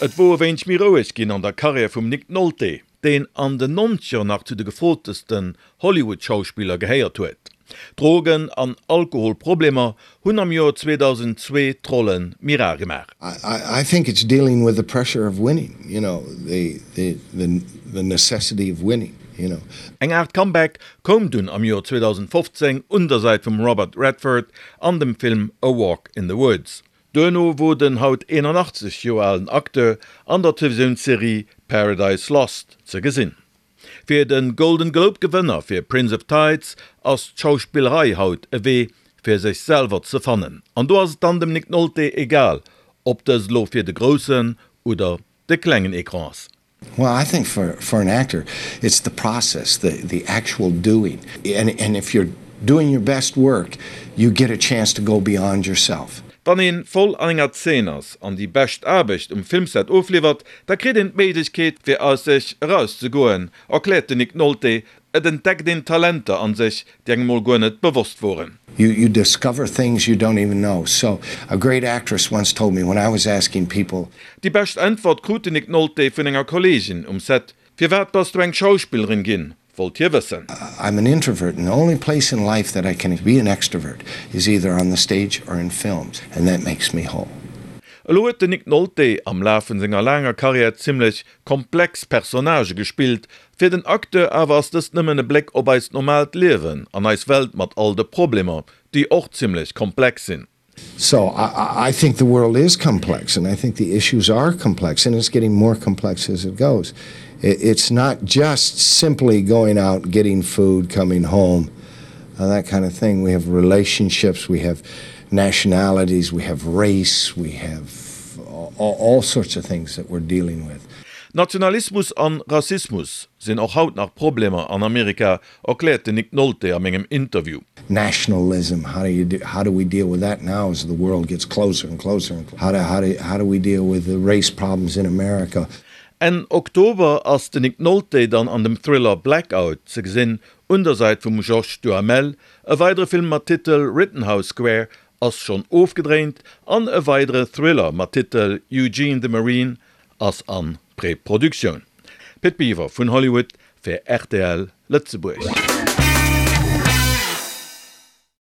Et wor e wéineg méi roueg ginn an der Karriär vum Nick Nolte, deen an den Nonzeger nach zu de gefrotesten Hollywood-Schauspiller gehéiert huet. Drogen an Alkoholproblemer hunn am Joer 2002 d'Rolle méi rar gemaach. I think it's dealing with the pressure of winning, you know, the the the necessity of winning, you know. Eng Aart Comeback koum dunn am Joer 2015 un der Säit vum Robert Redford an dem Film A Walk in the Woods. Duerno wor den haut 81 Joer alen Acteur an der Televisiounsserie Paradise Lost ze gesinn. Fir de Golden Globe Gewënner fir Prince of Tides ass d'Schauspillerei haut e Wee fir sech selwer ze fannen. An do ass et dann dem Nick Nolte egal, ob dëst elo fir de groussen oder de klengen Ecran ass. Well I think for for an actor it's the process, the the actual doing and and if you're doing your best work you get a chance to go beyond yourself. Wann een voll an enger Zeen ass an déi bescht Aarbecht um Filmset ofliwwert, da kritt een d'Méiglechkeet fir aus sech eraus ze goen, erkläert de Nick Nolte. Et entdeckt een Talenter an sech, déi engem mol guer net bewosst woren. You you discover things you don't even know. So a great actress once told me when I was asking people. Déi bescht Äntwert krut de Nick Nolte vun enger Kolleegin um Set, Firwat bass du eng Schauspillerin ginn? wollt hie wëssen. I'm an introvert and the only place in life that I can be an extrovert is either on the stage or in films and that makes me whole. Elo huet den Nick Nolte am Laf vun senger laanger Karriär zimmlech komplex Personnagë gespillt. Fir den Acteur awer ass dëst nëmmen e Bléck op eist normaalt Liewen an eis Welt mat all de Problemer, déi och zimmlech komplex sinn. So I, I think the world is complex and I think the issues are complex and it's getting more complex as it goes. It's not just simply going out, getting food, coming home, uh, that kind of thing. We have relationships, we have nationalities, we have race, we have all, all sorts of things that we're dealing with. Nationalismus an Rassismus sinn och haut nach Problemer an Amerika, erkläert den Nick Nolte a mengem Interview. Nationalism, how do you do, how do we deal with that now as the world gets closer and closer and how do, how do, how do we deal with the race problems in America? Enn Oktober ass den Nick Nolte dann an dem Thriller Blackout ze gesinn, un der Säit vum Josh Duhamel. E weidere Film mat Titel Rittenhouse Square ass schonn ofgedréint an e weidere Thriller mat Titel Eugene the Marine ass an Preproduktioun. Pit Biwer vun Hollywood fir rtl Lëtzebuerg.